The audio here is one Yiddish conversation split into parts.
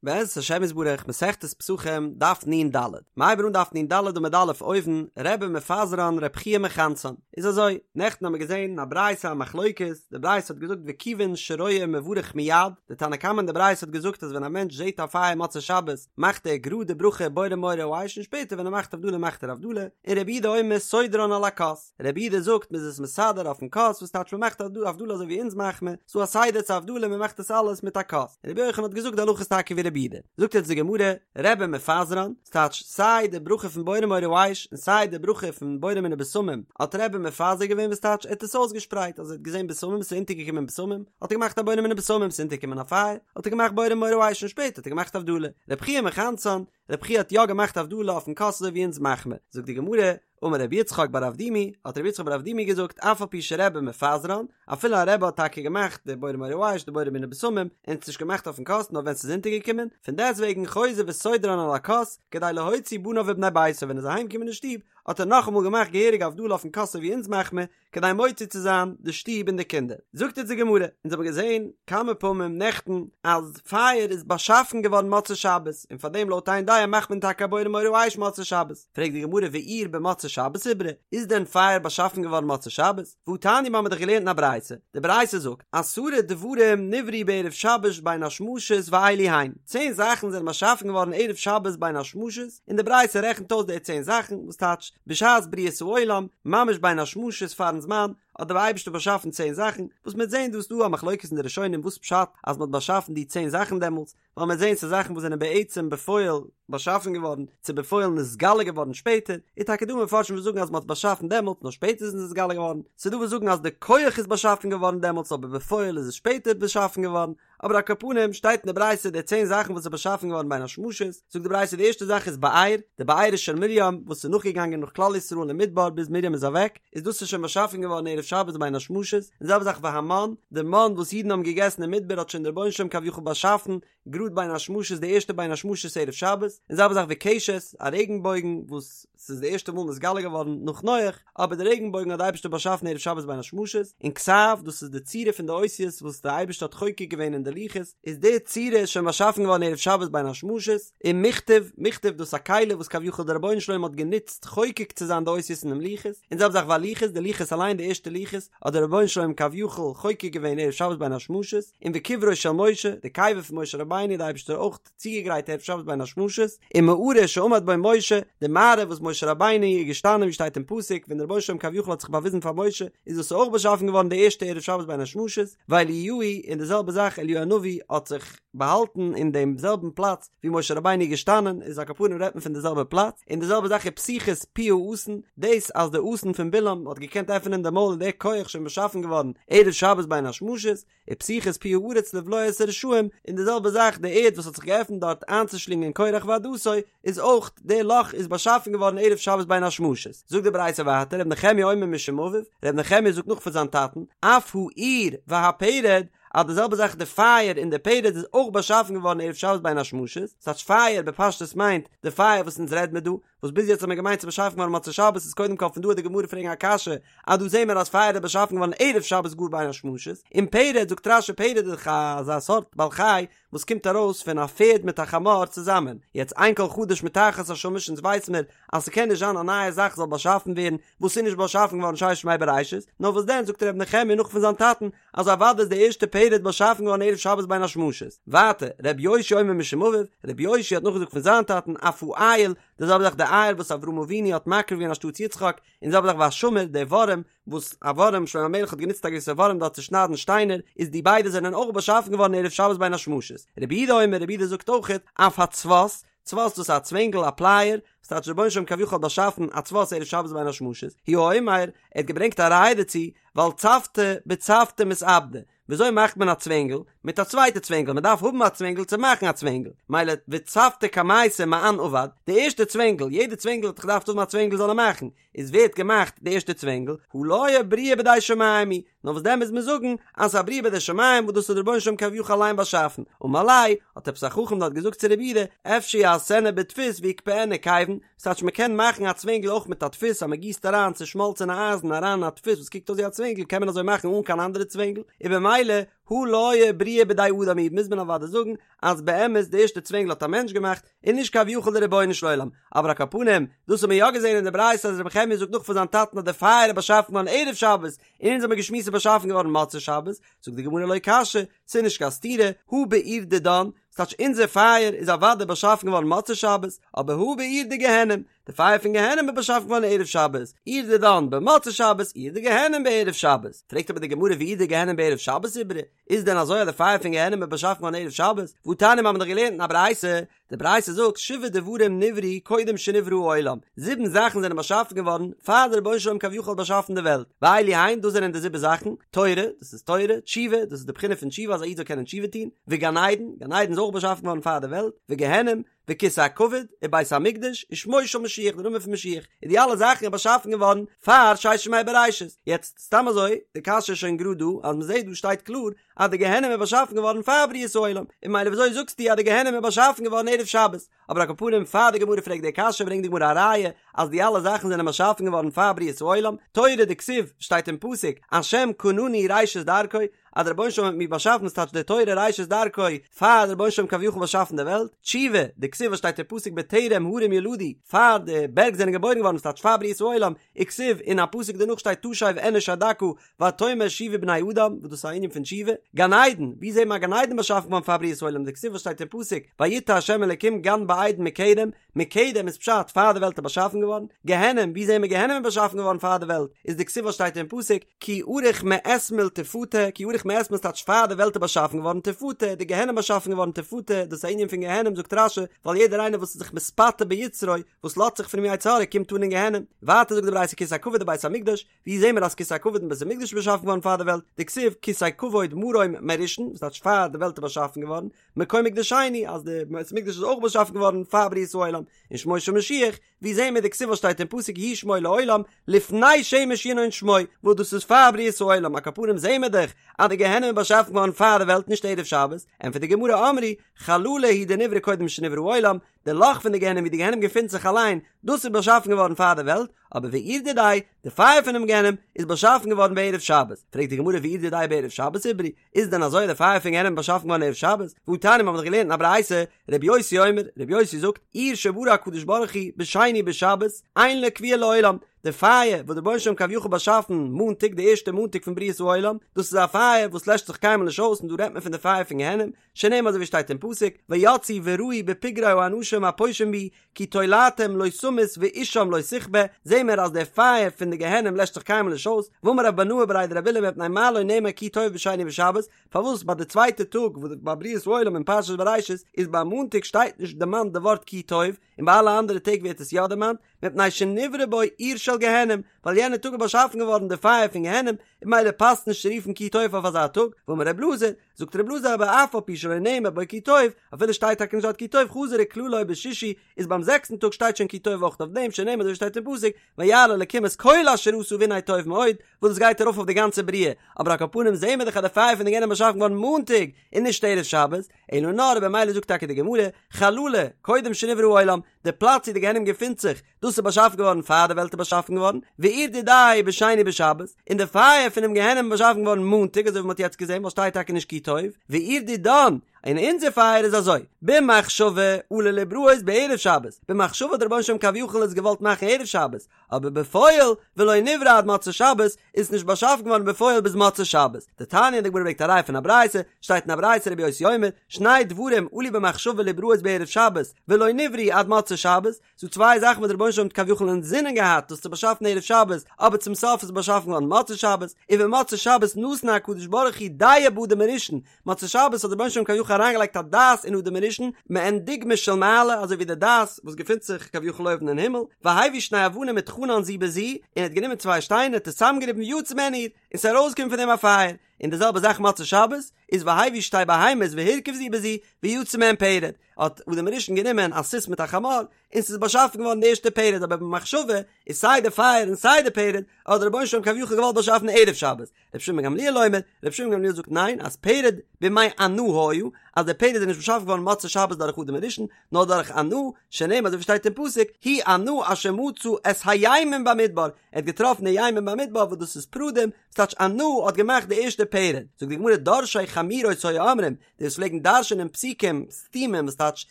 בעזרת השם יתברך, מסכת פסחים, דף נ"ד. מ'הייבן אן דף נ"ד עמוד א' אויבן, רבי מפזרן רבי חייא מכנסן. איז אזוי, נעכטן האמיר געזען אין א ברייתא א מחלוקת, די ברייתא האט געזאגט וכיוון שרואה מברך מיד, די תנא קמא אין די ברייתא האט געזאגט אז ווען א מענטש זעט א פייער מוצאי שבת מאכט ער גראד די ברכה בורא מאורי האש און שפעטער ווען ער מאכט הבדלה מאכט ער הבדלה, און רבי יהודה אומר סודרן על הכוס. רבי יהודה זאגט מ'איז עס מסדר אויפן כוס וואס טייטש מ'מאכט הבדלה אזוי ווי אונז מאכט מען, ס'דא א סדר צו הבדלה מ'מאכט עס אלעס מיט א כוס, און רבי יוחנן האט געזאגט די הלכה איז טאקע ווי רבי יהודה, זאגט יעצט די גמרא, רבי מפזרן, ס'טייטש סיי די ברכה פון בורא מאורי האש און סיי די ברכה פון בורא מיני בשמים האט רבי מפזר געווען וואס טייטש ער האט עס אויסגעשפרייט אז ער האט געזען בשמים ס'איז אונטערגעקומען בשמים האט ער געמאכט א בורא מיני בשמים ס'איז אונטערגעקומען א פייער האט ער געמאכט בורא מאורי האש און שפעטער האט ער געמאכט הבדלה, רבי חייא מכנסן, רבי חייא האט יא געמאכט הבדלה אויפן כוס אזוי ווי אונז מאכט מען, זאגט די גמרא, אמר רבי יצחק בר אבדימי, האט רבי יצחק בר אבדימי געזאגט, אף על פי שרבי מפזרן, אפילו א רבי האט טאקע געמאכט די בורא מאורי האש, די בורא מיני בשמים, און עס נישט געמאכט אויפן כוס נאר ווען ס'איז אונטערגעקומען, פון דעסטוועגן חוזר וסודרן על הכוס, כדי להוציא בניו ובני ביתו, ווען ער איז אהיימגעקומען אין שטוב, האט ער נאכאמאל געמאכט געהעריג הבדלה אויפן כוס אזוי ווי אונז מאכט מען, כדי מוציא צו זיין די שטוב און די קינדער. זאגט אונז די גמרא, אונז האבן געזען כמה פעמים נעכטן אז פייער איז באשאפן געווארן מוצאי שבת, און פאר דעם לויט איין דעה מאכט מען טאקע א בורא מאורי האש מוצאי שבת. פרעגט די גמרא ואור במוצאי שבת איברי, איז דען פייער באשאפן געווארן מוצאי שבת? והתניא מיר האבן דאך געלערנט אין א ברייתא, די ברייתא זאגט, עשרה דברים נבראו בערב שבת בין השמשות ואלו הן, צען זאכן זענען באשאפן געווארן ערב שבת בין השמשות, און די ברייתא רעכנט אויס די צען זאכן, וואס טייטש, בשעת בריאת העולם, ממש בין השמשות פארן זמן, האט דער אייבערשטער באשאפן צען זאכן, וואס מ'וועט זען דא איז דא א מחלוקת אין די ראשונים וואס פשט אז מ'האט באשאפן די צען זאכן דעמאלטס, ווייל מ'וועט זען ס'איז זאכן וואס זענען בעצם בפועל באשאפן געווארן, צו בפועל נתגלה געווארן שפעטער, איז טאקע דא מפרשים וואס זאגן אז מ'האט עס באשאפן דעמאלטס נאר שפעטער איז עס נתגלה געווארן, ס'איז דא וואס זאגן אז די כח איז באשאפן געווארן דעמאלטס אבער בפועל איז עס שפעטער באשאפן געווארן, אבער על כל פנים שטייט אין די ברייתא די צען זאכן וואס איז באשאפן געווארן בין השמשות, זאגט די ברייתא די ערשטע זאך איז באר, די בארה של מרים וואס איז נאכגעגאנגען נאך כלל ישראל אין מדבר ביז מרים איז אוועק, איז דאס איז שוין באשאפן געווארן ערב שבת בין השמשות, און זעלבע זאך והמן, די מן וואס אידן האבן געגעסן אין מדבר האט שוין דער רבונו של עולם כביכול באשאפן גראד בין השמשות די ערשטע בין השמשות ערב שבת, און זעלבע זאך וקשת, א רעגנבויגן וואס ס'איז די ערשטע מאל נתגלה געווארן נאך נח, אבער די רעגנבויגן האט די אייבערשטער באשאפן ערב שבת בין השמשות, און כתב, דאס איז די צורה פון די אותיות וואס די אייבערשטער האט חוקק געווען אין די לוחות, איז די צורה איז שוין באשאפן געווארן ערב שבת בין השמשות, און מכתב, מכתב דאס איז א כלי וואס כביכול דער רבונו של עולם האט גענוצט חוקק צו זיין די אותיות אינעם לוחות, און זעלבע זאך והלוחות, די לוחות אליין די ערשטע לוחות האט דער רבונו של עולם כביכול חוקק געווען ערב שבת בין השמשות, און וקברו של משה, די קבר פון משה רבינו האט די אייבערשטער אויך צוגעגרייט ערב שבת בין השמשות, ומערה שעמד בו משה, די מערה וואס משה רבינו איז געשטאנען ווי שטייט אין פסוק ווען דער רבונו של עולם כביכול האט זיך באוויזן פאר משה, איז דאס אויך באשאפן געווארן די ערשטע ערב שבת בין השמשות, ואליהו, און די זעלבע זאך אליהו הנביא האט זיך באהאלטן אין דעם זעלבן פלאץ ווי משה רבינו איז געשטאנען, איז על כל פנים רעדט מען פון די זעלבע פלאץ, און די זעלבע זאך ופתיחת פי האתון, דאס אז די אתון פון בלעם האט געקענט עפענען די מויל איז דער כח שוין באשאפן געווארן ערב שבת בין השמשות, ופתיחת פי הארץ לבלוע את הרשעים, און די זעלבע זאך די ערד וואס האט זיך געעפנט דארט איינצושלינגען קרח ועדתו, איז אויך די לאך איז באשאפן געווארן ערב שבת בין השמשות. זאגט די ברייתא ווייטער ר' נחמיה אומר משום אביו, ר' נחמיה זאגט נאך פון זיין טאטן, אף האור והפרד, אז די זעלבע זאך די פייער און די פרד איז אויך באשאפן געווארן ערב שבת בין השמשות, ס'טייטש פייער בפשטות מיינט די פייער וואס אונז רעד מיר דא, וואס ביז יעצט האט מען געמיינט ס'איז באשאפן געווארן מוצאי שבת איז קודם כל פון דא וועט די גמרא פרעגן א קשיא אז דא זעהן מיר אז פייער איז באשאפן געווארן ערב שבת גאר בין השמשות און פרד זאגט רש"י פרד איז דאך אזא סארט בעל חי וואס קומט ארויס פון א פערד מיט א חמור צוזאמען יעצט אין כל חדש מתחת השמש אונז ווייס מיר אז ס'קען נישט זיין א נייע זאך זאל באשאפן ווערן וואס איז נישט באשאפן געווארן ששת ימי בראשית נאר וואס דען זאגט ר' נחמיה נאך פון זיין טאטן אז אוודאי איז די ערשטע פרד באשאפן געווארן ערב שבת בין השמשות. ווייטער, ר' יאשיה אומר משום אביו, ר' יאשיה האט נאכגעזאגט פון זיין טאטן, אף האיל, די זעלבע זאך די איל וואס אברהם אבינו האט מקריב געווען אנשטאטס יצחק, און די זעלבע זאך והשמיר, די ווארעם, וואס א ווארעם, שלמה המלך האט גענוצט א געוויסע ווארעם דארט צו שניידן שטיינער, איז די ביידע זענען אויך באשאפן געווארן ערב שבת בין השמשות. רבי יהודה אומר, רבי יהודה זאגט אויכעט, אף הצבת, צבת דאס איז א צווענגל א פלייער, וואס טייטש רבונו של עולם כביכול האט באשאפן א צבת ערב שבת בין השמשות, הוא אומר, ער האט געברענגט א ראיה דערצו, ווייל צבתא בצבתא מתעבדא, וויאזוי מאכט מען א צווענגל? מיט א צווייטע צווענגל, מען דארף האבן א צווענגל צו מאכן א צווענגל, מילא וצבתא קמייתא מאן עבד, די ערשטע צווענגל, יעדע צווענגל האט דאך געדארפט האבן א צווענגל זאל ער מאכן, איז ווער האט געמאכט די ערשטע צווענגל? הא לא בריאה בידי שמים היא, נאר וואס דען מוז מען זאגן אז ס'איז א בריאה בידי שמים וואס דאס האט דער רבונו של עולם כביכול אליין באשאפן, אמר ליה, האט עפעס א חכם דארט געזאגט צו רבי יהודה, אפשר יעשנה בדפוס ויקבענה כיוון, ס'טייטש מ'קען מאכן א צווענגל אויך מיט א דפוס אז מ'גיסט אריין צושמאלצענע אייזן אריין אין א דפוס וואס קוקט אויס ווי א צווענגל קען מען אזוי מאכן אן קיין אנדערע צווענגל, און במילא. הא לא בריאה בידי אדם היא, מוז מען אוודאי זאגן אז באמת די ערשטע צווענגל האט א מענטש געמאכט, און נישט כביכול די רבונו של עולם, אבער על כל פנים, דאס האט מען יא געזען אין די ברייתא אז רבי נחמיה זאגט נאך פון זיין טאטן אז די פייער איז באשאפן געווארן ערב שבת, און אונז האמיר געשמועסט ס'איז באשאפן געווארן מוצאי שבת, זאגט די גמרא לא קשיא, ס'איז נישט קיין סתירה, הא באור דידן, ס'טייטש אונזער פייער איז אוודאי באשאפן געווארן מוצאי שבת, אבער הא באור דגיהנום, די פייער פון גיהנום איז באשאפן געווארן ערב שבת, אור דידן במוצאי שבת, אור דגיהנום בערב שבת. פרעגט אבער די גמרא ואור דגיהנום בערב שבת איברי, איז דען אזוי אז די פייער פון גיהנום איז באשאפן געווארן ערב שבת? והתניא מיר האבן דאך געלערנט אין א ברייתא, די ברייתא זאגט שבעה דברים נבראו קודם שנברא העולם, זיבן זאכן זענען באשאפן געווארן פאר דער רבונו של עולם כביכול האט באשאפן די וועלט, ואלו הן, דאס זענען די זיבן זאכן, תורה, דאס איז תורה, תשובה, דאס איז די בחינה פון תשובה אז א איד זאל קענען תשובה טון, וגן עדן, גן עדן איז אויך באשאפן געווארן פאר די וועלט, וגיהנום, וכסא הכבוד, ובית המקדש, ושמו של משיח, די נאמען פון משיח, און די אלע זאכן איז באשאפן געווארן פאר ששת ימי בראשית. יעצט, סתם אזוי, די קשיא איז שוין גראד דא, אז מ'זעט דא שטייט קלאר אז די גיהנום איז באשאפן געווארן פאר בריאת העולם, און ממילא וויאזוי זאגסטו אז די גיהנום איז באשאפן געווארן ערב שבת? אבער על כל פנים פאר די גמרא פרעגט די קשיא ברענגט די גמרא א ראיה אז די אלע זאכן זענען באשאפן געווארן פאר בריאת העולם, תורה דכתיב, שטייט אין פסוק, השם קנני ראשית דרכו, אז דער רבונו של עולם האט מיר באשאפן ס'טייטש די תורה ראשית דרכו פאר דער רבונו של עולם כביכול באשאפן די וועלט, תשובה, דכתיב וואס שטייט אין פסוק בטרם הרים יולדו, פאר די בערג זענען געבוירן געווארן ס'טייטש פאר בריאת העולם, וכתיב, אין א פסוק דערנאך שטייט תשב אנוש עד דכא ותאמר שובו בני אדם, וואס דאס איז א ענין פון תשובה, גן עדן, ווי זעהט מען א גן עדן באשאפן געווארן פאר בריאת העולם, דכתיב וואס שטייט אין פסוק ויטע ה' אלקים גן בעדן מקדם, מקדם איז פשט פאר די וועלט איז באשאפן געווארן, גיהנום, ווי זעהן מיר גיהנום איז באשאפן געווארן פאר די וועלט, איז דכתיב וואס שטייט אין פסוק, כי ארוך מאתמול תפתה, כי ארוך מאתמול טייטש פאר די וועלט איז באשאפן געווארן תפתה, די גיהנום באשאפן געווארן תפתה, דאס איז א ענין פון גיהנום זאגט רש"י, ווייל יעדער איינער וואס איז זיך מתפתה ביצרו, וואס לאזט זיך פונעם יצר הרע קומט אן אין גיהנום, ווייטער זאגט די ברייתא כסא הכבוד ובית המקדש, ווי זעהן מיר אז כסא הכבוד און בית המקדש איז באשאפן געווארן פאר די וועלט, דכתיב כסא כבוד מרום מראשון, וואס טייטש פאר די וועלט איז באשאפן געווארן, מקום מקדשנו אז די בית המקדש איז אויך באשאפן געווארן פאר בריאת העולם, און שמו של משיח, ווי זעהן מיר דכתיב וואס שטייט אין פסוק יהי שמו לעולם, לפני שמש ינון שמו, וואס דאס איז פאר בריאת העולם, על כל פנים זעהן מיר דאך אז די גיהנום איז באשאפן געווארן פאר די וועלט נישט ערב שבת, ענטפערט די גמרא אמרי, חללה הוא דנברא קודם שנברא העולם, די לאך פון די גיהנום ווי די גיהנום געפינט זיך אליין, דאס איז באשאפן געווארן פאר די וועלט, אבער ואור דידיה, די פייער פונעם גיהנום, איז באשאפן געווארן בערב שבת. פרעגט די גמרא ואור דידיה בערב שבת איברי, איז דען אזוי אז די פייער פון גיהנום איז באשאפן געווארן ערב שבת? והתניא מיר האבן דאך געלערנט אין א ברייתא, רבי יוסי אומר, רבי יוסי זאגט, אור שברא הקדוש ברוך הוא בשני בשבת, אין לו כבייה לעולם, די פייער וואס דער רבונו של עולם כביכול באשאפן מאנטאג די ערשטע מאנטאג פון בריאת העולם, דאס איז א פייער וואס לעשט זיך קיינמאל נישט אויס און דא רעדט מען פון די פייער פון גיהנום, שנאמר אזוי ווי שטייט אין פסוק, ויצאו וראו בפגרי האנשים הפושעים בי, כי תולעתם לא תמות ואשם לא תכבה, זעהן מיר אז דער פייער פון די גיהנום לעשט זיך קיינמאל נישט אויס, ואמר רב בנאה בריה דרב עולא מפני מה לא נאמר כי טוב בשני בשבת, פארוואס ביי די צווייטע טאג וואס ביי בריאת העולם אין פרשת בראשית איז ביי מאנטאג שטייט נישט דערמאנט די ווארט כי טוב, און ביי אלע אנדערע טעג ווערט עס יא דערמאנט, מפני שנברא בו אור של גיהנום, ווייל יענע טאג איז באשאפן געווארן די פייער פון גיהנום, און ממילא פאסט נישט צו רופן כי טוב אויף אזא טאג, ואמר רב אלעזר, זאגט רב אלעזר אבער אף על פי שלא נאמר בו כי טוב, אפילו שטייט טאקע נישט דארט כי טוב חזר וכללו בשישי, איז ביים זעקסטן טאג שטייט שוין כי טוב אויך אויף דעם, שנאמר אזוי ווי שטייט אין פסוק, וירא אלקים את כל אשר עשה והנה טוב מאוד, וואס דאס גייט ארויף אויף די גאנצע בריאה, אבער על כל פנים זעהן מיר דאך אז די פייער פון די גיהנום איז באשאפן געווארן מאנטאג, און נישט ערב שבת, אלא נאר במילא זאגט טאקע די גמרא, חללה, קודם שנברא העולם, די פלאץ ווי די גיהנום געפינט זיך, דאס איז באשאפן געווארן פאר די וועלט איז באשאפן געווארן, ואור דידיה בשני בשבת, און די פייער פונעם גיהנום איז באשאפן געווארן מאנטאג אזוי ווי מען האט יעצט געזען ווייל שטייט טאקע נישט כי טוב, ואור דידן, און אונזער פייער איז אזוי, במחשבה עלה להבראות בערב שבת, במחשבה האט דער רבונו של עולם כביכול עס געוואלט מאכן ערב שבת, אבער בפועל ולא נברא עד מוצאי שבת איז עס נישט באשאפן געווארן בפועל ביז מוצאי שבת. דתניא, די גמרא ברענגט א ראיה פון א ברייתא, שטייט אין א ברייתא רבי יוסי אומר, שני דברים עלו במחשבה להבראות בערב שבת ולא נבראו עד מוצאי שבת, ס'דא צוויי זאכן וואס דער רבונו של עולם האט כביכול אינזינען געהאט דאס צו באשאפן ערב שבת, אבער צום סוף איז עס באשאפן געווארן מוצאי שבת, ובמוצאי שבת נתן הקדוש ברוך הוא דעה באדם הראשון, מוצאי שבת האט דער רבונו של עולם כביכול אריינגעלייגט א דעת אין אדם הראשון, מעין דוגמא של מעלה, אזוי ווי די דעת וואס געפינט זיך כביכול אויבן אין הימל, והביא שני אבנים וטחנן זו בזו, און ער האט גענומען צוויי שטיינער האט עס צוזאמגעריבן ויצא מהן אור, און ס'איז ארויסגעקומען פון דעם א פייער, און די זעלבע זאך מוצאי שבת, איז והביא שתי בהמות והרכיב זו בזו, ויצא מהן פרד, האט אדם הראשון גענומען א סוס מיט א חמור, און ס'איז באשאפן געווארן די ערשטע פרד, אבער במחשבה איז סיי די פייער און סיי די פרד, האט דער רבונו של עולם כביכול געוואלט באשאפן ערב שבת, רבי שמעון בן גמליאל אומר, רבי שמעון בן גמליאל זאגט ניין, אז פרד בימי אנא היה, אז דער פרד איז נישט באשאפן געווארן מוצאי שבת דורך אדם הראשון, נאר דורך אנא, שנאמר אזוי ווי שטייט אין פסוק, הוא אנא אשר מצא את הימים במדבר, ער האט געטראפן די ימים במדבר וואס דאס איז פרדים, ס'טייטש אנא האט געמאכט די ערשטע. פרד. זאגט די גמרא דורשי חמורות היו אומרים, די וואס פלעגן דרש'ענען פסוקים סתומים וואס טייטש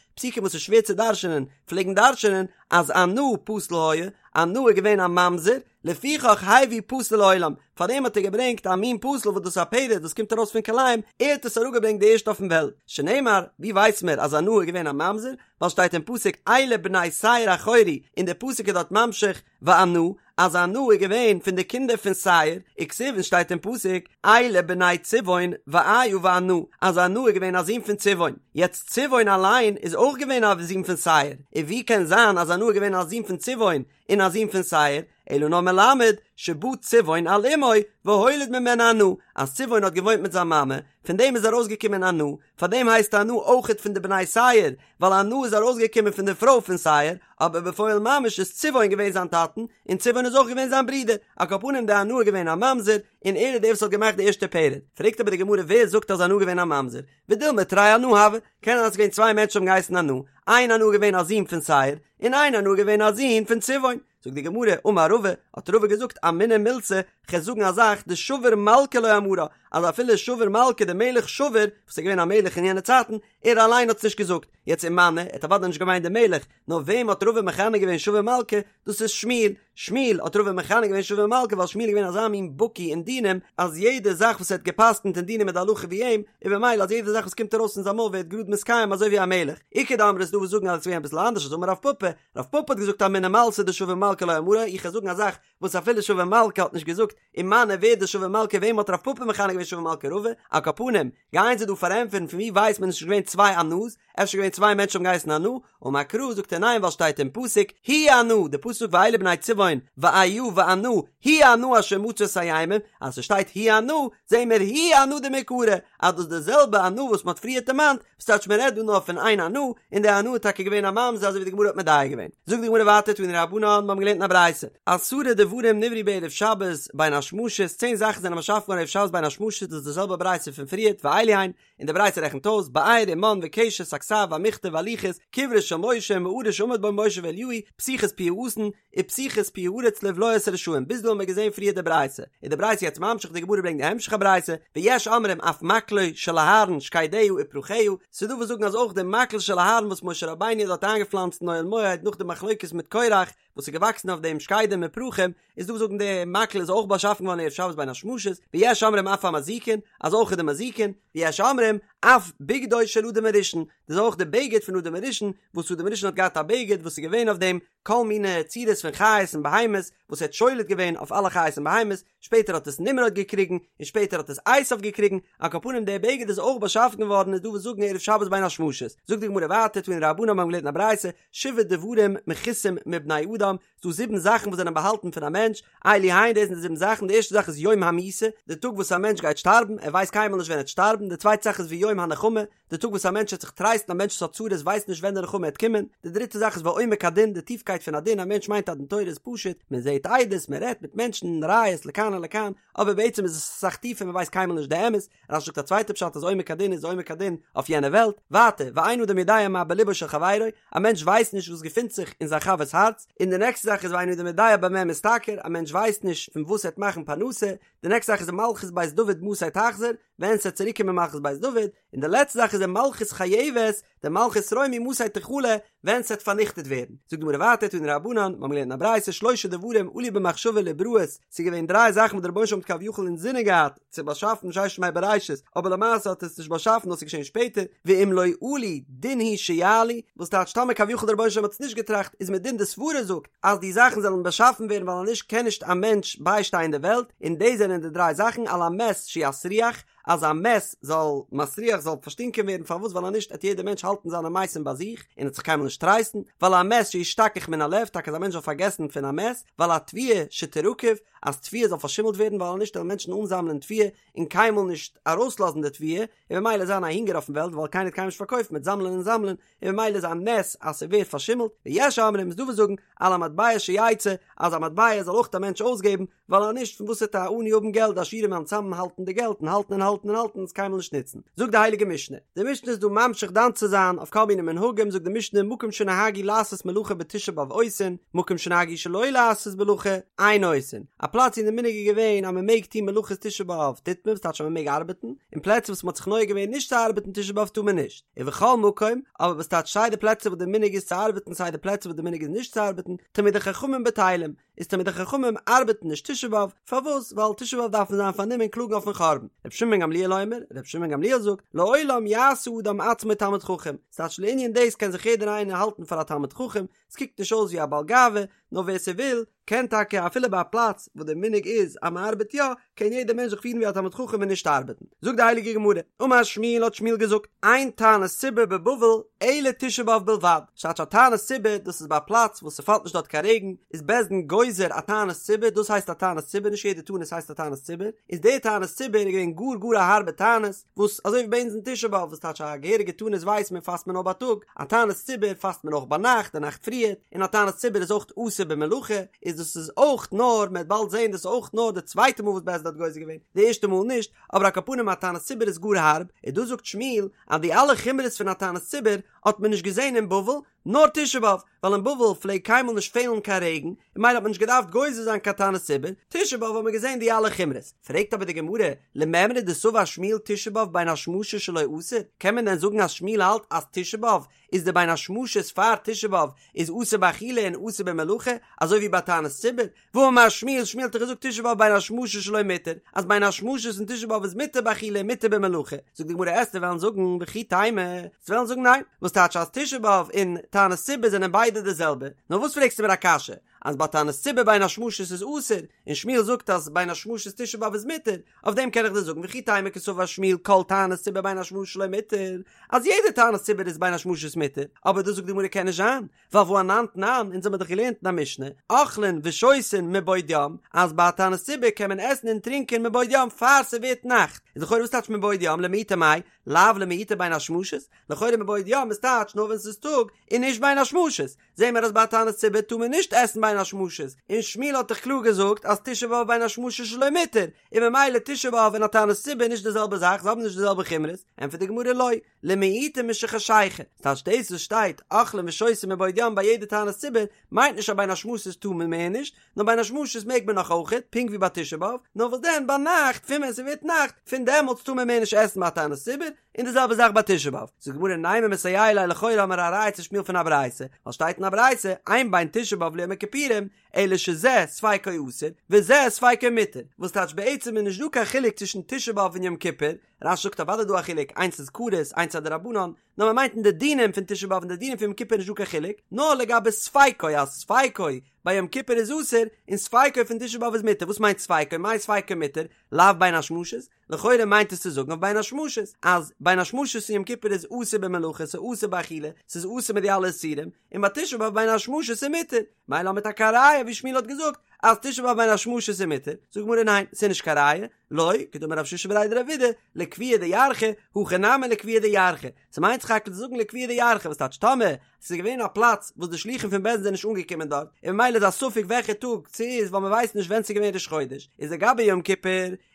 פסוקים וואס איז שווער צו דרש'ענען, פלעגן דרש'ענען אז ענה פסול היה, ענה איז געווען א ממזר, לפיכך הביא פסול לעולם, פארדעם האט ער געברענגט א מין פסול וואס דאס איז א פרד וואס קומט ארויס פון כלאים, ער האט עס אראפגעברענגט די ערשטע אויפן וועלט, שנאמר, ווי ווייס מיר אז ענה איז געווען א ממזר, ווייל שטייט אין פסוק אלה בני שעיר החורי, און דער פסוק איז דארט ממשיך וענה, אז ענה איז געווען פון די קינדער פון שעיר, וכתיב און שטייט אין פסוק אלה בני צבעון ואיה וענה, אז ענה איז געווען א זון פון צבעון, יעצט צבעון אליין איז אויך געווען א זון פון שעיר, און ווי קען זיין אז ענה איז געווען א זון פון צבעון און א זון פון שעיר, אלא נאר מלמד שבא צבעון על אמו והוליד ממנה ענה, אז צבעון האט געוואוינט מיט זיין מאמע, פון דעם איז ארויסגעקומען ענה, פאר דעם הייסט ענה אויכעט פון די בני שעיר, ווייל ענה איז ארויסגעקומען פון די פרוי פון שעיר, אבער בפועל ממש איז צבעון געווען זיין טאטן, און צבעון איז אויך געווען זיין ברודער, על כל פנים דער ענה איז געווען א ממזר, און ער איז דער וואס האט געמאכט די ערשטע פרד. פרעגט אבער די גמרא ווער זאגט אז ענה איז געווען א ממזר? ודילמא תרי ענה הוו, קען זיין אז ס'איז געווען צוויי מענטשן האבן געהייסן ענה, איין ענה איז געווען א זון פון שעיר, און איין ענה איז געווען א זון פון צבעון. זאגט די גמרא, אמר רבא, האט רבא געזאגט, אמינא מילתא, כ'על זאגן א זאך, דשבור מלכא לא אמרה, אז אפילו שבור מלכא דער מלך שבור, וואס איז געווען א מלך אין יענע צייטן, ער אליין האט עס נישט געזאגט, יעצט ומני, ער האט אוודאי נישט געמיינט דעם מלך, נאר וועם האט רבא מכנה געווען שבור מלכא, דאס איז שמואל, שמואל האט רבא מכנה געווען שבור מלכא ווייל שמואל איז געווען אזא מין בקי אין דינים, אז יעדע זאך וואס ער האט גע'פסק'נט אין דינים איז די הלכה ווי אים, און במילא אז יעדע זאך וואס קומט ארויס פון זיין מויל ווערט גראד מתקיים אזוי ווי א מלך. איכא דאמרי ס'איז דא וואס זאגן אז עס איז געווען אביסל אנדערש אז אמר רב פפא, רב פפא האט געזאגט אמינא מילתא דשבור מלכא לא אמרה, איך וועל זאגן א זאך וואס אפילו שבור מלכא האט נישט געזאגט, ומני ווער איז דער שבור מלכא וועם האט רב פפא מכנה געווען שבור מלכא רבא, על כל פנים, גייען זיי דא פארענטפערן פון ווי ווייסט מען עס איז נישט געווען צוויי ענה'ס, אפשר געווען צוויי מענטשן האבן געהייסן ענה, אמר קרא זאגט ער ניין ווייל שטייט אין פסוק הוא ענה, די פסוק ואלה בני צבעון ואיה וענה, הוא ענה אשר מצא את הימים, אז ס'שטייט הוא ענה, זעהן מיר הוא ענה דמעיקרא, אז דאס איז די זעלבע ענה וואס מ'האט פריערט דערמאנט, וואס טייטש מ'רעדט דא נאר פון איין ענה, און די ענה איז טאקע געווען א ממזר אזוי ווי די גמרא האט מדייק געווען. זאגט די גמרא ווייטער תנו רבנן, מ'האבן געלערנט אין א ברייתא, עשרה דברים נבראו בערב שבת בין השמשות, צען זאכן זענען באשאפן געווארן ערב שבת בין השמשות, דאס איז די זעלבע ברייתא פון פריערט, ואלו הן, און די ברייתא רעכנט אויס, באר ומן וקשת הכתב והמכתב והלוחות, קברו של משה ומערה שעמד בה משה ואליהו, פתיחת פי האתון, ופתיחת פי הארץ לבלוע את הרשעים, ביז דא האבן מיר געזען פריער די ברייתא, איז די ברייתא יעצט ממשיך, די גמרא ברענגט די המשך הברייתא, ויש אומרים אף מקלו של אהרן שקדיה ופרחיה, ס'איז דא וואס זאגן אז אויך די מקל של אהרן וואס משה רבינו האט דארט איינגעפלאנצט אין אוהל מועד נאך די מחלוקת מיט קורח, וואס איז געוואקסן אויף דעם שקדים און פרחים, איז דא וואס זאגן די מקל איז אויך באשאפן געווארן ערב שבת בין השמשות, ויש אומרים אף המזיקין, אז אויך די מזיקין, ויש אומרים אף בגדו של אדם הראשון, דאס איז אויך די בגד פון אדם הראשון, וואס אדם הראשון האט געהאט א בגד וואס איז געווען אויף דעם כל מיני צורות פון חיות און בהמות, וואס ער האט שולט געווען אויף אלע חיות און בהמות, שפעטער האט עס נמרוד געקריגן, און שפעטער האט עס עשיו געקריגן, על כל פנים דער בגד איז אויך באשאפן געווארן איז דא וואס זאגן ערב שבת בין השמשות, זאגט די גמרא ווייטער תנו רבנן מיר האבן געלערנט אין א ברייתא, שבעה דברים מכוסים מבני אדם, ס'דא זיבן זאכן וואס זענען באהאלטן פון א מענטש, אלו הן דאס זענען די זיבן זאכן, די ערשטע זאך איז יום המיתה, די טאג וואס א מענטש גייט שטארבן, ער ווייסט קיינמאל נישט ווען ער וועט שטארבן, די צווייטע זאך איז ויום הנחמה, די טאג וואס א מענטש וועט זיך טרייסטן, א מענטש וואס האט צרות ווייסט נישט ווען די נחמה וועט קומען, די דריטע זאך איז ועומק הדין, די טיפקייט פון א דין, א מענטש מיינט אז דין תורה איז פשוט, מען זעט עדות, מען רעדט מיט מענטשן, ראיות לכאן ולכאן, אבער בעצם איז עס אסאך טיפער מען ווייסט קיינמאל נישט די אמת, רש"י זאגט א צווייטע פשט אז עומק הדין איז עומק הדין אויף יענע וועלט, ווייטער, ואין אדם יודע מה בלבו של חברו, א מענטש ווייסט נישט וואס געפינט זיך אין זיין חבר'ס הארץ, און די נעקסטע זאך איז ואין אדם יודע במה משתכר, א מענטש ווייסט נישט פון וואס ער וועט מאכן פרנסה, די נעקסטע זאך איז מלכות בית דוד מתי תחזור, ווען ס'וועט צוריק קומען מלכות בית דוד, און די לעצטע זאך איז ומלכות חייבת, די מלכות רומי מתי תכלה, ווען ס'וועט פארניכטעט ווערן. זאגט די גמרא ווייטער תנו רבנן, מיר האבן געלערנט אין א ברייתא שלושה דברים עלו במחשבה לבראות, ס'איז געווען דריי זאכן וואס דער רבונו של עולם האט כביכול אינזינען געהאט צו באשאפן ששת ימי בראשית, אבער למעשה האט ער עס נישט באשאפן נאר ס'איז געשען שפעטער, ואם לא עלו דין הוא שיעלו, וואס טייטש טאמער כביכול דער רבונו של עולם האט עס נישט געטראכט איז מדין די סברה זאגט אז די זאכן זאלן באשאפן ווערן ווייל אנישט קען נישט א מענטש ביישטיין די וועלט, און דאס זענען די דריי זאכן על המת שיסריח, אז א מת זאל מסריח זאל פארשטינקען ווערן פארוואס ווייל אנישט עט יעדער מענטש האלטן זיינע מתים ביי זיך און עט זיך קיינמאל נישט טרייסטן ועל המת שישתכח מן הלב טאקע אז א מענטש זאל פארגעסן פון א מת ועל התבואה שתרקב אז תבואה זאל פארשימלט ווערן ווייל אנישט וועלן מענטשן אנזאמלען תבואה און קיינמאל נישט ארויסלאזן די תבואה און ממילא זיין א הונגער אויפן וועלט ווייל קיינער וועט קיינמאל נישט פארקויפן מ'עט זאמלען און זאמלען און ממילא איז א נס אז ס'ווערט פארשימלט, ויש אומרים איז דא וואס זאגן על המטבע שיצא אז א מטבע זאל אויך א מענטש אויסגעבן, ווייל אז נישט פון וואס וועט א עני האבן געלט, די עשירים וועלן צאמהאלטן די געלט און האלטן און האלטן. האלטן און האלטן און עס קיינמאל נישט נוצן. זאגט די הייליגע משנה, די משנה איז דא ממשיך דן צו זיין אויף כל מיני מנהגים, זאגט די משנה מקום שנהגו לעשות מלאכה בתשעה באב עושין, מקום שנהגו שלא לעשות מלאכה אין עושין, א פלאץ ווי די מנהג איז געווען אז מען מעג טון מלאכות תשעה באב טוט מען, וואס טייטש אז מען מעג ארבעטן, און פלעצער וואס מען האט זיך נוהג געווען נישט צו ארבעטן תשעה באב טאר מען נישט, ובכל מקום, אבער וואס טייטש סיי די פלעצער וואס די מנהג איז צו ארבעטן סיי די פלעצער וואס די מנהג איז נישט צו ארבעטן, תלמידי חכמים בטלים, איז תלמידי חכמים ארבעטן נישט תשעה באב, פארוואס? ווייל תשעה באב דארף מען זיין פארנומען קלאגן אויפן חורבן. רבי שמעון בן גמליאל אומר, רבי שמעון בן גמליאל זאגט, לעולם יעשה אדם עצמו תלמיד חכם, ס'טייטש לענין דאס קען זיך יעדער איינער האלטן פאר א תלמיד חכם, ס'קוקט נישט אויס ווי א בעל גאווה, נאר ווער ס'וויל, קען טאקע אפילו ביי א פלאץ וואס דער מנהג איז אז מ'ארבעט יא, קען יעדער מענטש זיך פירן ווי א תלמיד חכם און נישט ארבעטן. זאגט די הייליגע גמרא, אמר שמואל האט שמואל געזאגט, אין תענית ציבור בבבל אלא תשעה באב בלבד, ס'טייטש א תענית ציבור דאס איז ביי א פלאץ וואס ס'פאלט נישט דארט קיין רעגן, איז בית דין גוזר א תענית ציבור, דאס הייסט א תענית ציבור, נישט יעדע תענית הייסט א תענית ציבור, איז די תענית ציבור איז געווען גאר גאר א הארבע תענית, וואס אזוי ווי ביי אונז אין תשעה באב וואס טייטש א געהעריגע תענית ווייסט מען פאסט מען נאר בייטאג, א תענית ציבור פאסט מען אויך ביינאכט די נאכט פריער, און א תענית ציבור איז אויך אסור במלאכה, איז דאס איז אויך נאר, מען וועט באלד זען דאס איז אויך נאר די צווייטע מאל וואס בית דין האט גוזר געווען, די ערשטע מאל נישט, אבער על כל פנים א תענית ציבור איז גאר הארב, און דא זאגט שמואל אז די אלע חומרות פון א תענית ציבור האט מען נישט געזען אין בבל, נאר תשעה באב, ווייל אין בבל פלעגט קיינמאל נישט פעלן קיין רעגן, און ממילא האט מען נישט געדארפט גוזר זיין קיין תענית ציבור, תשעה באב האט מען געזען די אלע חומרות. פרעגט אבער די גמרא, למימרא דסבר שמואל תשעה באב בין השמשות שלו אסור, קען מען דען זאגן אז שמואל האלט אז תשעה באב איז די בין השמשות פאר תשעה באב איז אסור באכילה און אסור במלאכה, אזוי ווי ביי תענית ציבור? והאמר שמואל, שמואל האט דאך געזאגט תשעה באב בין השמשות שלו מותר, אז בין השמשות אין תשעה באב איז מותר באכילה און מותר במלאכה, זאגט די גמרא עסטו וועלן זאגן וכי תימא, עסטו וועלן זאגן ניין, וואס טייטש אז תשעה באב און תענית ציבור זענען ביידע די זעלבע, נאר וואס פרעגסטו מיר א קשיא, אז ביי תענית ציבור בין השמשות איז אסור, און שמואל זאגט אז בין השמשות תשעה באב איז מותר, אויף דעם קען איך דיר זאגן וכי תימא קסבר שמואל כל תענית ציבור בין השמשות שלו מותר, אז יעדע תענית ציבור איז בין השמשות מותר, אבער דאס זאגט די גמרא קען נישט זיין, ווייל והא אנן תנן, אונז האמיר דאך געלערנט אין א משנה, אוכלין ושותין מבעוד יום, אז ביי א תענית ציבור קען מען עסן און טרינקען מבעוד יום פאר ס'ווערט נאכט, איז לכאורה וואס טייטש מבעוד יום למעוטי מאי, לאו למעוטי בין השמשות, לכאורה מבעוד יום איז טייטש נאר ווען ס'איז טאג און נישט בין השמשות, זעהן מיר אז ביי א תענית ציבור טאר מען נישט עסן בין השמשות, און שמואל האט דאך קלאר געזאגט אז תשעה באב בין השמשות שלו מותר, און ממילא תשעה באב און א תענית ציבור איז נישט די זעלבע זאך, זיי האבן נישט די זעלבע חומרות, ענטפערט די גמרא לא, למעוטי משחשיכה, ס'טייטש דאס וואס שטייט אוכלין ושותין מבעוד יום ביי יעדע תענית ציבור, מיינט נישט אז בין השמשות טאר מען מער נישט, נאר בין השמשות מעג מען נאך אויכעט, פונקט ווי ביי תשעה באב, נאר וואס דען ביינאכט פון ווען ס'ווערט נאכט, פון דעמאלטס טאר מען מער נישט עסן ביי א תענית ציבור, און די זעלבע זאך ביי תשעה באב. זאגט די גמרא נימא מסייע ליה לכאורה האמיר א ראיה צו שמואל פון א ברייתא, ווייל שטייט אין א ברייתא, אין בין תשעה באב ליום הכיפורים, אלא שזה ספיקו אסור, וזה ספיקו מותר, וואס טייטש בעצם איז נישט דא קיין חילוק צווישן תשעה באב און יום כיפור, רש"י זאגט אוודאי דא א חילוק, איינס איז כרת, איינס איז א דרבנן, נאר מען מיינט אין די דינים פון תשעה באב און די דינים פון יום כיפור איז נישט דא קיין חילוק, נאר לגבי ספיקו אז ספיקו ביי יום כיפור איז אסור, און ספיקו פון תשעה באב איז מותר, וואס מיינט ספיקו? מאי ספיקו מותר? לאו בין השמשות? לכאורה מיינט עס צו זאגן אויף בין השמשות, אז בין השמשות אין יום כיפור איז אסור במלאכה, ס'איז אסור באכילה, ס'איז אסור מיט די אלע איסורים, און ביי תשעה באב בין השמשות איז מותר, מילא האמיר טאקע א ראיה ווי שמואל האט געזאגט אז תשעה באב בין השמשות איז מותר, זאגט גמרא ניין, ס'איז נישט קיין ראיה, לא, כדאמר רב שישא בריה דרב אידי, לקביעא דירחא, הכא נמי לקביעא דירחא, ס'מיינט סך הכל צו זאגן לקביעא דירחא, וואס טייטש טאמער ס'איז געווען א פלאץ וואס די שלוחים פון בית דין זענען נישט אנגעקומען דארט, און ממילא איז א ספק וועלכע טאג ס'איז ווייל מ'ווייסט נישט ווען ס'איז געווען ראש חודש, איז לגבי יום כיפור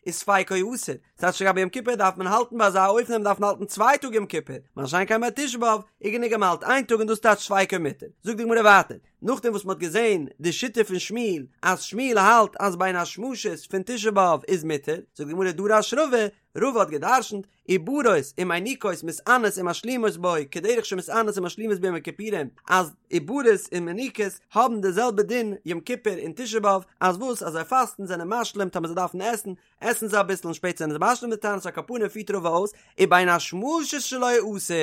איז ספיקו אסור, ס'טייטש לגבי יום כיפור דארף מען האלטן ביי אזא אופן אז מ'דארף האלטן צוויי טאג יום כיפור, מה שאין כן ביי תשעה באב איז גענוג אז מ'האלט איין טאג און דאס טייטש ספיקו מותר. זאגט די גמרא ווייטער, נאכדעם וואס מ'האט געזען די שיטה פון שמואל אז שמואל האלט אז בין השמשות פון תשעה באב איז מותר, זאגט די גמרא דרש רבא, רבא האט גע'דרש'נט, עוברות ומיניקות מתענות ומשלימות בו כדרך שמתענות ומשלימות ביום הכיפורים אז עוברות און מיניקות האבן די זעלבע דין יום כיפור און תשעה באב אז וואס אז זיי פאסטן זענען משלים טאמער זיי דארפן עסן עסן זיי אביסל און שפעטער זענען זיי משלים די תענית על כל פנים פירט רבא אויס ובין השמשות שלו אסור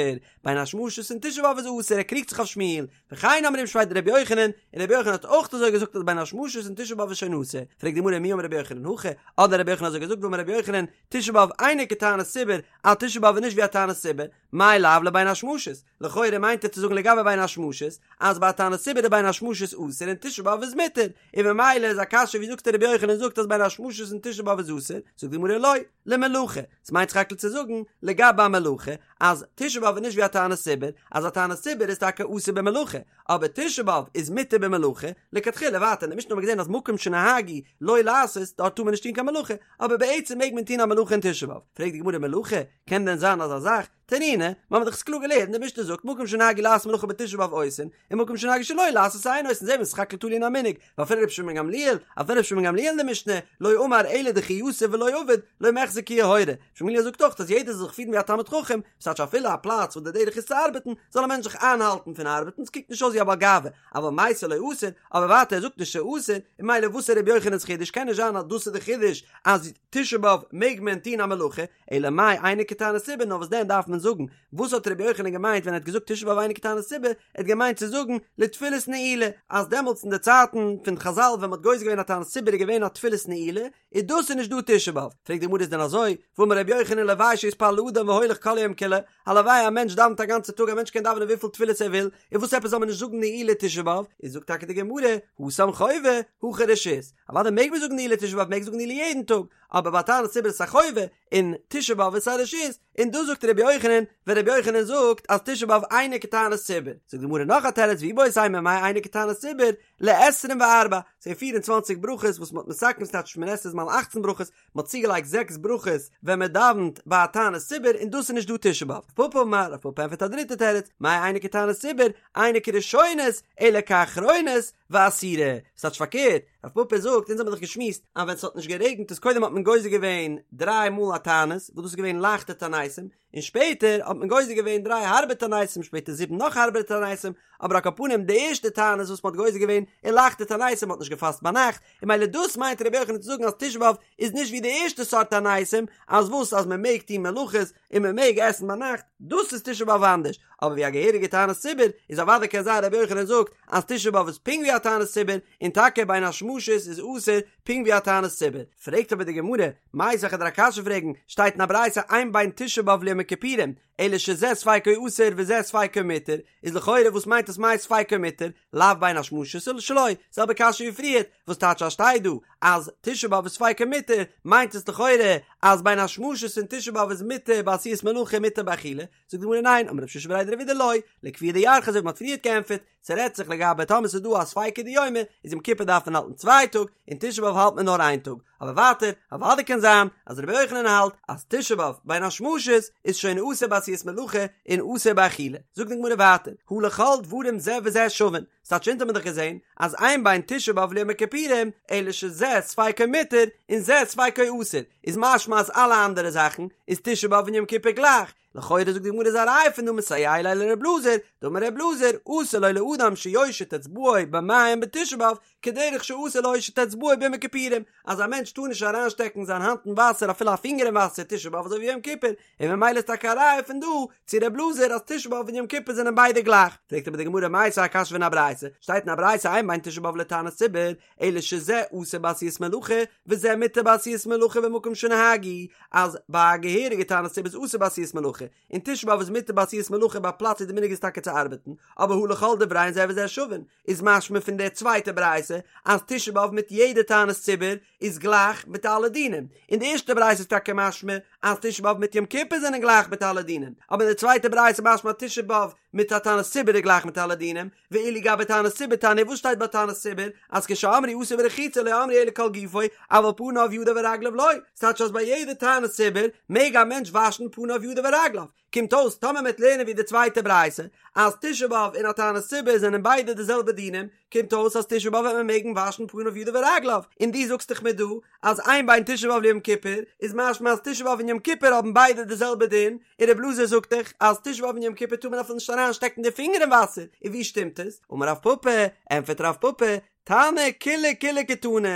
בין השמשות אין תשעה באב איז אסור ער קריגט זיך אויף שמואל וכן אמרו משמיה דרבי יוחנן און רבי יוחנן האט אויך אזוי געזאגט אז בין השמשות אין תשעה באב איז שוין אסור פרעגט די גמרא מי אמר רבי יוחנן הכי האט דען רבי יוחנן אזוי געזאגט והאמר רבי יוחנן תשעה באב אינו כתענית ציבור, אז תשעה באב איז נישט ווי א תענית ציבור, מאי לאו לבין השמשות, לכאורה מיינט ער צו זאגן לגבי בין השמשות, אז ביי א תענית ציבור איז בין השמשות אסור און תשעה באב איז מותר, און ממילא איז א קשיא ווי זאגט רבי יוחנן זאגט אז בין השמשות אין תשעה באב איז אסור, זאגט די גמרא לא, למלאכה, ס'מיינט סך הכל צו זאגן לגבי א מלאכה, אז תשעה באב איז נישט ווי א תענית ציבור, אז א תענית ציבור איז טאקע אסור במלאכה, אבער תשעה באב איז מותר במלאכה, לכתחילה ווייטער אין די משנה האבן מיר געזען אז מקום שנהגו לא לעשות דארט טאר מען נישט טון קיין מלאכה, אבער בעצם מעג מען טון א מלאכה אין תשעה באב, פרעגט די גמרא מלאכה? קען דען זיין אזא זאך? תנינא, מיר האבן דאך עס קלאר געלערנט, די משנה זאגט מקום שנהגו לעשות מלאכה בתשעה באב עושין, און מקום שנהגו שלא לעשות אין עושין, זעהן מיר סך הכל תלוי אין א מנהג, ואפילו רבי שמעון גמליאל, אפילו רבי שמעון גמליאל אין די משנה, לא אמר אלא דכי יתיב ולא עביד, לא מיחזי כיוהרא, רבי שמעון גמליאל זאגט אויך אז יעדער זאל זיך פירן ווי א תלמיד חכם, ס'טייטש אפילו א פלאץ וואס די דרך איז צו ארבעטן, זאל א מענטש זיך איינהאלטן פון ארבעטן, ס'קוקט נישט אויס ווי א בעל גאווה, אבל מיסר לא אסר, אבער ווייטער ער זאגט נישט ס'אסור, און ממילא וואס איז רבי יוחנן'ס חידוש, קען נישט זיין אז דאס איז די חידוש אז תשעה באב מעג מען טון א מלאכה, אלא מאי אינו כתענית ציבור, נאר וואס דען דארף מען זאגן, וואס האט רבי יוחנן געמיינט ווען ער האט געזאגט תשעה באב אינו כתענית ציבור, ער האט געמיינט צו זאגן לתפילת נעילה, אז דעמאלטס אין די צייטן פון חזל ווען מ'האט גוזר געווען א תענית ציבור איז געווען א תפילת נעילה, איז דאס איז נישט דא תשעה באב, פרעגט די גמרא איז דען אזוי, והאמר רבי יוחנן לוואי שיתפלל אדם והולך כל היום כולו, הלוואי א מענטש דאווענט א גאנצע טאג א מענטש קען דאווענען וויפיל תפילות ער וויל, און וואס עפעס זאל מען נישט זאגן נעילה תשעה באב, איז זאגט טאקע די גמרא, התם חובה, הכא רשות, אוודאי מעג מען זאגן נעילה תשעה באב מעג זאגן נעילה יעדן טאג, אבער ביי תענית ציבור איז עס א חובה, און תשעה באב איז א רשות, און דאס זאגט רבי יוחנן, ווען רבי יוחנן זאגט אז תשעה באב אינו כתענית ציבור, זאגט די גמרא נאך א תירוץ ואיבעית אימא מאי אינו כתענית ציבור, לעשרים וארבע, ס'איז פיר און צוואנציג ברכות וואס מ'האט מתקן ס'טייטש שמונה עשרה איז מאל אכצן ברכות, מ'האט צוגעלייגט זעקס ברכות ווען מ'דאווענט ביי א תענית ציבור און דאס איז נישט דא תשעה באב. רב פפא אמר, רב פפא ענטפערט א דריטע תירוץ, מאי אינו כתענית ציבור, אינו כראשונות, אלא כאחרונות, ואסירה. ס'טייטש פארקערט, רב פפא זאגט, אונז האבן דאך געשמועסט אז ווען ס'האט נישט גערעגנט איז קודם האט מען גוזר געווען דריי מאל א תענית, וואס דאס איז געווען לייכטע תעניתים, און שפעטער האט מען גוזר געווען דריי הארבע תעניתים, שפעטער זיבן נאך הארבערע תעניתים, אבער על כל פנים די ערשטע תענית וואס מען האט גוזר געווען איז לייכטע תעניתים, מען האט נישט געפאסט ביינאכט, און ממילא דאס מיינט רבי יוחנן צו זאגן אז תשעה באב איז נישט ווי די ערשטע סארט תעניתים, אז וואס אז מען מעג טון מלאכות און מען מעג עסן ביינאכט, דאס איז תשעה באב אנדערש, אבער ווי א געהעריגע תענית ציבור איז אוודאי קען זיין רבי יוחנן זאגט אז תשעה באב איז פונקט ווי א תענית ציבור, און טאקע בין השמשות איז אסור פונקט ווי א תענית ציבור. פרעגט אבער די גמרא, מיתיבי כ'וועל דיר א קשיא פרעגן, שטייט אין א ברייתא אין בין תשעה באב ליום הכיפורים, אלא שזה ספיקו אסור וזה ספיקו מותר, איז לכאורה וואס מיינט עס מאי ספיקו מותר, לאו בין השמשות שלו, זעלבע קשיא ווי פריערט, וואס טייטש אז שטייט דא אז תשעה באב איז ספיקו מותר, מיינט עס לכאורה אז בין השמשות פון תשעה באב איז מותר בעשיית מלאכה און מותר באכילה, זאגט די גמרא ניין, אמר רב שישא בריה דרב אידי לא, לקביעא דירחא אזוי ווי מ'האט פריערט געענטפערט, ס'רעדט זיך לגבי טאמער ס'איז דא א ספיקא דיומא, איז יום כיפור דארף מען האלטן צוויי טאג, און תשעה באב האלט מען נאר איין טאג, אבער ווייטער, אוודאי קען זיין אז רבי יוחנן האלט אז תשעה באב בין השמשות איז שוין אסור בעשיית מלאכה און אסור באכילה. זאגט די גמרא ווייטער, הא לכל דברים זה וזה שווין, ס'טייטש אונז האבן מיר דאך געזען אז אין בין תשעה באב ליום הכיפורים אלא שזה ספיקו מותר און זה ספיקו אסור, איז משמע אז אלע אנדערע זאכן איז תשעה באב און יום כיפור גלייך, לכאורה זאגט די גמרא איז א ראיה פון דא מסייע ליה לר' אלעזר, דאמר ר' אלעזר, אסור לו לאדם שיושיט אצבעו במים בתשעה באב, כדרך שאסור להושיט אצבעו ביום הכיפורים, אז א מענטש טאר נישט אריינשטעקן זיין האנט אין וואסער אפילו א פינגער אין וואסער תשעה באב אזוי ווי יום כיפור, און ממילא איז טאקע א ראיה פון דא צו ר' אלעזר אז תשעה באב און יום כיפור זענען ביידע גלייך. פרעגט אבער די גמרא מיתיבי א קשיא פון א ברייתא, שטייט אין א ברייתא אין בין תשעה באב לתענית ציבור, אלא שזה אסור בעשיית מלאכה, וזה מותר בעשיית מלאכה במקום שנהגו, אז ביי א געהעריגע תענית ציבור איז אסור בעשיית מלאכה, און תשעה באב איז מותר בעשיית מלאכה ביי א פלאץ ווי די מנהג איז טאקע צו ארבעטן, אבער הא לכל דבריהן זה וזה שווין, איז משמע פון די צווייטע ברייתא אז תשעה באב מיט יעדע תענית ציבור איז גלייך מיט אלע דינים, אין די ערשטע ברייתא איז טאקע משמע אז תשעה באב מיט יום כיפור זענען גלייך מיט אלע דינים, אבער אין די צווייטע ברייתא איז משמע אז תשעה באב מיט א תענית ציבור איז גלייך מיט אלע דינים, ואילו גבי תענית ציבור תניא וואס שטייט ביי תענית ציבור אז כשאמרו אסור ברחיצה לא אמרו אלא כל גופו אבל פניו ידיו ורגליו לא, ס'טייטש אז ביי יעדע תענית ציבור מעג א מענטש וואשן פניו ידיו ורגליו, קומט אויס טאמער מ'עט לערנען ווי די צווייטע ברייתא אז תשעה באב און א תענית ציבור זענען ביידע די זעלבע דינים, קומט אויס אז תשעה באב וועט מען מעגן וואשן פניו ידיו ורגליו, און דו זאגסט דאך מיר דא אז אין בין תשעה באב ליום כיפור איז משמע אז תשעה באב און יום כיפור האבן ביידע די זעלבע דין, און רב אלעזר זאגט דאך אז תשעה באב און יום כיפור טאר מען אפילו נישט אריין שטעקן די פינגער אין וואסער, און ווי שטימט עס? אמר רב פפא, ענטפערט רב פפא, תנא קולי קולי קתני,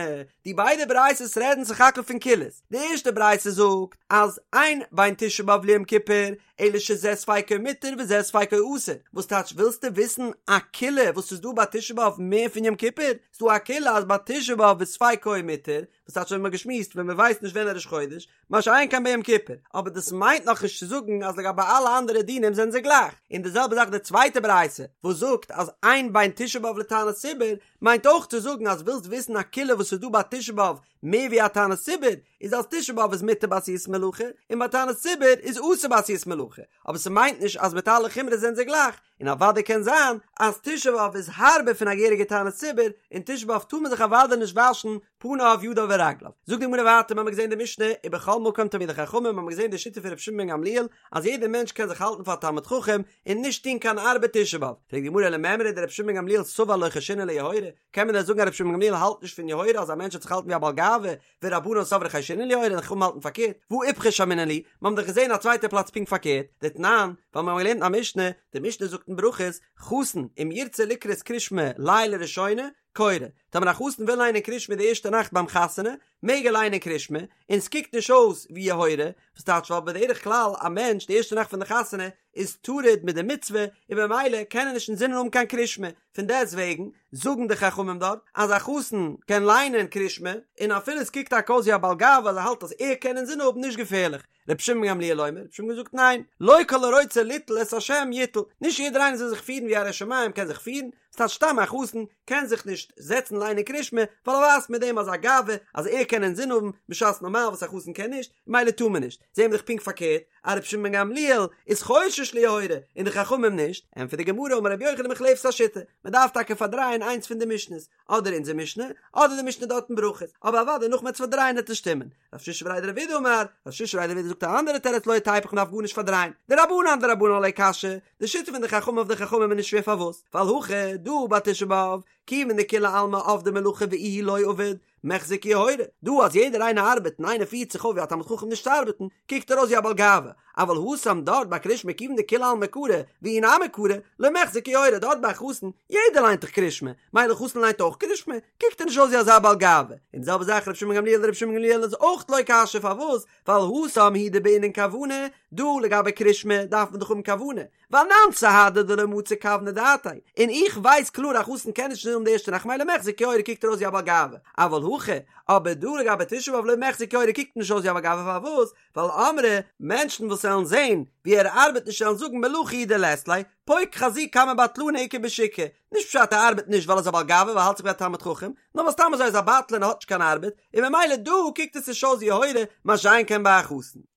די ביידע ברייתות רעדן סך הכל פון קולות, די ערשטע ברייתא זאגט אז אין בין תשעה באב ליום כיפור אלא שזה ספיקו מותר וזה ספיקו אסור, וואס טייטש ווילסטו וויסן א קולא וואס איז דא ביי תשעה באב מער פון יום כיפור? ס'דא א קולא אז ביי תשעה באב איז ספיקו מותר, וואס וואס טייטש ווי מ'האט געשמועסט ווען מ'ווייסט נישט ווען ראש חודש, מה שאין כן ביום כיפור, אבער דאס מיינט נאכנישט צו זאגן אז לגבי אלע אנדערע דינים זענען זיי גלייך, און די זעלבע זאך די צווייטע ברייתא וואס זאגט אז אין בין תשעה באב לתענית ציבור, מיינט אויך צו זאגן אז ווילסט וויסן א קולא וואס איז דא ביי תשעה באב מער ווי א תענית ציבור, איז אז תשעה באב איז מותר בעשיית מלאכה, און ביי תענית ציבור איז אסור בעשיית מלאכה, אבער ס'מיינט נישט אז מיט אלע חומרות זענען זיי גלייך, און אוודאי קען זיין אז תשעה באב איז הארבער פון א געהעריגע תענית ציבור, און תשעה באב טאר מען זיך אוודאי נישט וואשן פניו ידיו ורגליו. זאגט די גמרא ווייטער, מ'האמיר געזען די משנה, ובכל מקום תלמידי חכמים, מ'האמיר געזען די שיטה פון רבי שמעון בן גמליאל, אז יעדער מענטש קען זיך האלטן פאר א תלמיד חכם, און נישט טון קיין ארבעט תשעה באב. פרעגט די גמרא למימרא דרבי שמעון בן גמליאל סבר לא חיישינן ליוהרא, קען מען דען זאגן אז רבי שמעון בן גמליאל האלט נישט פון יוהרא אז א מענטש זאל זיך האלטן ווי א בעל גאווה, ורבנן סברי חיישינן ליוהרא און חכמים האלטן פארקערט, והא איפכא שמעינן להו, מיר האבן דאך געזען א צווייטע פלאץ פונקט פארקערט, דתנן, ווייל מיר האבן געלערנט א משנה, די משנה זאגט אין ברכות, חתן, אם ירצה לקרות קרישמע לילה ראשונה, קורא, טאמער א חתן וויל ליינען קרישמע די ערשטע נאכט ביים חתונה, מעג ער ליינען קרישמע, און ס'קוקט נישט אויס ווי יוהרא, וואס טייטש ווייל בדרך כלל א מענטש די ערשטע נאכט פון די חתונה איז טרוד מיט די מצוה און במילא קען ער נישט אינזינען האבן קיין קרישמע, פון דעסט וועגן זאגן די חכמים דארט אז א חתן קען ליינען קרישמע און אפילו עס קוקט טאקע אויס ווי א בעל גאווה אז ער האלט אז ער קען אינזין האבן נישט געפערליך. רבי שמעון בן גמליאל אומר, רבי שמעון זאגט ניין, לא כל הרוצה ליטול את השם יטול, נישט יעדער איינער זאל זיך פירן ווי א ירא שמים קען זיך פירן, ס'טייטש סתם א חתן קען זיך נישט זעצן ליינען קרישמע ווייל ער ווייזט מיט דעם אזא גאווה אז ער קען אינזין האבן בשעת נארמאל וואס א חתן קען נישט, ממילא טאר מען נישט, זעהן מיר דאך פונקט פארקערט אז רבי שמעון בן גמליאל איז חושש ליוהרא און די חכמים נישט, ענטפערט די גמרא אמר רבי יוחנן מוחלפת השיטה, מען דארף טאקע פארדרייען איינס פון די משנה'ס, אדער אונזער משנה, אדער די משנה דארט אין ברכות, אבער אוודאי נאך מ'עט עס פארדרייען וועט עס שטימען. רב שישא בריה דרב אידי אמר, רב שישא בריה דרב אידי זאגט א אנדערע תירוץ לא תיפוך מ'דארף גארנישט פארדרייען, דרבנן אדרבנן לא קשיא, די שיטה פון די חכמים אויף די חכמים איז נישט שווער פארוואס? ווייל הכא דא ביי תשעה באב, כיוון דכולי עלמא עבדי מלאכה ואיהו לא עביד, מיחזי כיוהרא, דא אז יעדער איינער ארבעט און איינער פירט זיך אויף ווי א תלמיד חכם נישט צו ארבעטן, קוקט ער אויס ווי א בעל גאווה, אבל התם דארט ביי קרישמע כיוון דכולי עלמא קרי ואיהו נמי קרי, לא מיחזי כיוהרא דארט ביי א חתן, יעדער ליינט דאך קרישמע, מילא חתן ליינט אויך קרישמע, קוקט ער נישט אויס ווי אזא בעל גאווה, און די זעלבע זאך רבי שמעון גמליאל רבי שמעון גמליאל איז אויך לא קשיא פארוואס ווייל התם הוא דבעינן כוונה, דא לגבי קרישמע דארף מען דאך האבן כוונה, ואנן סהדי דלא מצי כווני דעתיה, און איך ווייס קלאר א חתן קען נישט אינזין האבן די ערשטע נאכט מילא מיחזי כיוהרא קוקט ער אויס ווי א בעל גאווה, אבל הכא, אבער דא לגבי תשעה באב לא מיחזי כיוהרא קוקט נישט אויס ווי א בעל גאווה פארוואס? ווייל אמרי, מענטשן וואס וועלן זען ווי ער ארבעט נישט וועלן זאגן מלאכה הוא דלית ליה, פוק חזי כמה בטלני איכא בשוקא, נישט פשט ער ארבעט נישט ווייל ער איז א בעל גאווה ווייל ער האלט זיך ווי א תלמיד חכם, נאר ווייל סתם אזוי איז א בטלן און האט נישט קיין ארבעט, און ממילא דא קוקט עס נישט אויס ווי יוהרא, מה שאין כן ביי א חתן.